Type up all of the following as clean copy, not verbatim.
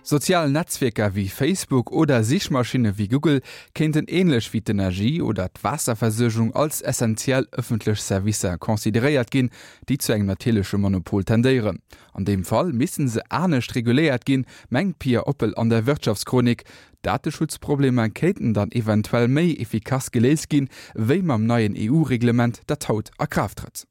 Sozial Netzwierker wéi Facebook oder Sichmaschinne wéi Google kéinten änlech wéi d'Energie oder d'Waasserversuergung als essentiell ëffentlech Servicer consideréiert ginn, déi zu engem natierleche Monopol tendéieren. An deem Fall misste se anescht reguléiert ginn, mengt d'Pia Oppel an der Wirtschaftschronik. Dateschutzproblemer kéinten dann eventuell méi efficace geléist ginn, wéi mam neien EU-Reglement, dat haut a Kraaft trëtt.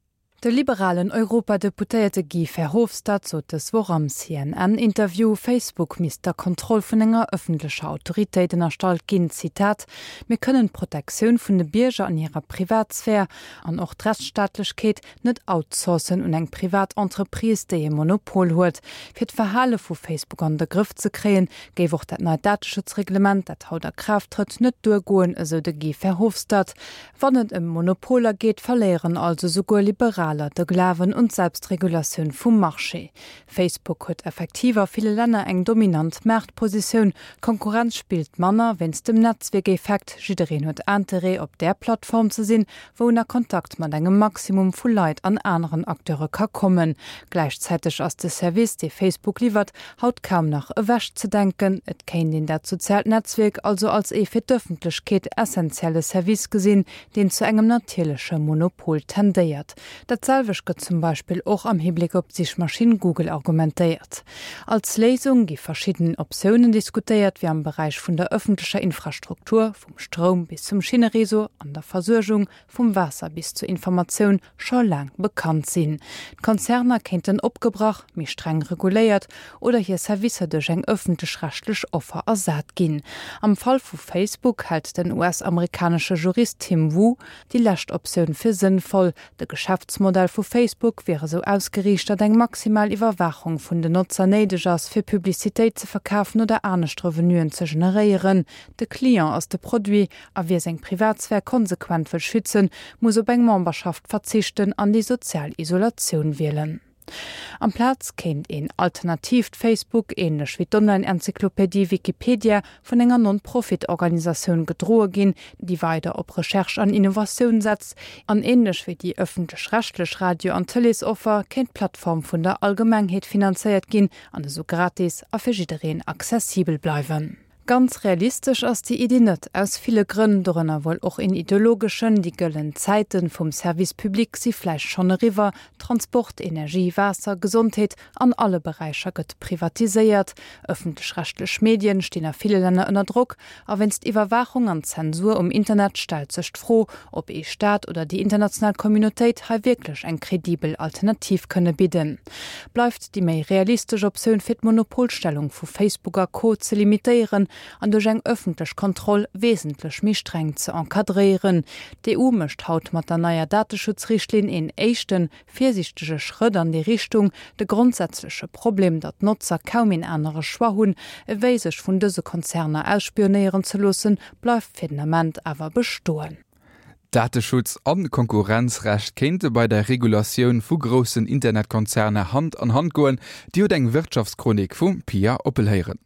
De liberalen Europadeputéierte Guy Verhofstadt sot dës Woch am CNN-Interview, Facebook misst der Kontroll vun enger ëffentlecher Autoritéit ënnerstallt ginn. Zitat, Mir kënnen d'Protektioun vun de Bierger an hirer Privatsphär an och d'Rechtsstaatlechkeet net outsourcen un eng privat Entreprise, déi e Monopol huet. Fir d'Verhale vu Facebook an de Grëff ze kréien, géif och dat neit Dateschutzreglement, dat haut a Kraaft trëtt, net duergoen, esou de Guy Verhofstadt. Wann et ëm Monopoler geet, verléieren also souguer Liberaler de Glawen un d'Selbstregulatioun vum Marché. Facebook huet effektiv a ville Länner eng dominant Maartpositioun. D'Konkurrenz spillt manner wéinst dem Netzwierkeffekt, jiddereen huet Interêt op där Plattform ze sinn, wou en a Kontakt mat engem Maximum vu Leit an aneren Acteure ka kommen. Gläichzäiteg ass de Service, dee Facebook liwwert, haut kaum nach ewech ze denken. Et kéint een dat soziaalt Netzwierk also als ee fir d'Ëffentlechkeet essentielle Service gesinn, deen zu engem natierleche Monopol tendéiert. Dat selwecht gëtt zum Beispill och am Hibléck op d'Sichmaschinn Google argumentéiert. Als Léisung gi verschidden Optiounen diskutéiert, wéi am Beräich vun der ëffentlecher Infrastruktur, vum Stroum bis zum Schinnereseau, an der Versuergung, vum Waasser bis zur Informatioun, scho laang bekannt sinn. D'Konzerner kéinten opgebrach, méi streng reguléiert oder hir Servicer duerch eng ëffentlech-rechtlech Offer ersat ginn. Am Fall vu Facebook hält den US-amerikanesche Jurist Tim Wu déi lescht Optioun fir sënnvoll. De Geschäftsmodell vu Facebook wier esou ausgeriicht, datt eng maximal Iwwerwaachung vun den Notzer néideg ass, fir Publicitéit ze verkafen oder anescht Revenuen ze generéieren. De Client ass de Produit a wie seng Privatsphär konsequent wëll schützen, muss op eng Memberschaft verzichten an déi sozial Isolatioun wielen. Amplaz kéint een alternatiivt Facebook, änlech wéi d'Online-Enzyklopedie Wikipedia, vun enger Non-Profit-Organisatioun gedroe ginn, déi weider op Recherche an Innovatioun setzt. An änlech wéi déi ëffentlech-rechtlech Radio an Tëleesoffer kéint d'Plattform vun der Allgemengheet finanzéiert ginn an esou gratis a fir jiddereen accessibel bleiwen. Ganz realistesch ass déi Iddi net, aus ville Grënn, dorënner wuel och een ideologeschen, Déi gëllen Zäite vum Service public si vläicht schonn eriwwer, Transport, Energie, Waasser, Gesondheet, an alle Beräicher gëtt privatiséiert, ëffentlech-rechtlech Medien stinn a ville Länner ënner Drock a wéinst Iwwerwaachung an Zensur um Internet stellt sech d'Fro, ob ee Staat oder déi international Communautéit hei wierklech eng kredibel Alternativ kënne bidden. Bleift déi méi realistesch Optioun fir d'Monopolstellung vu Facebook a Co ze limitéieren an duerch eng ëffentlech Kontroll wesentlech méi streng ze encadréieren. D'EU mécht haut mat der neier Dateschutzrichtlinn een éischten, virsiichtege Schrëtt an déi Richtung. De grondsätzleche Problem, datt d'Notzer kaum een anere Choix hunn, ewéi sech vun dëse Konzerner ausspionéieren ze loossen, bleift fir den Ament awer bestoen. Dateschutz an Konkurrenzrecht kéinte bei der Regulatioun vu groussen Internetkonzerner Hand an Hand goen. Dir hutt eng Wirtschaftschronik vum Pia Oppel héieren.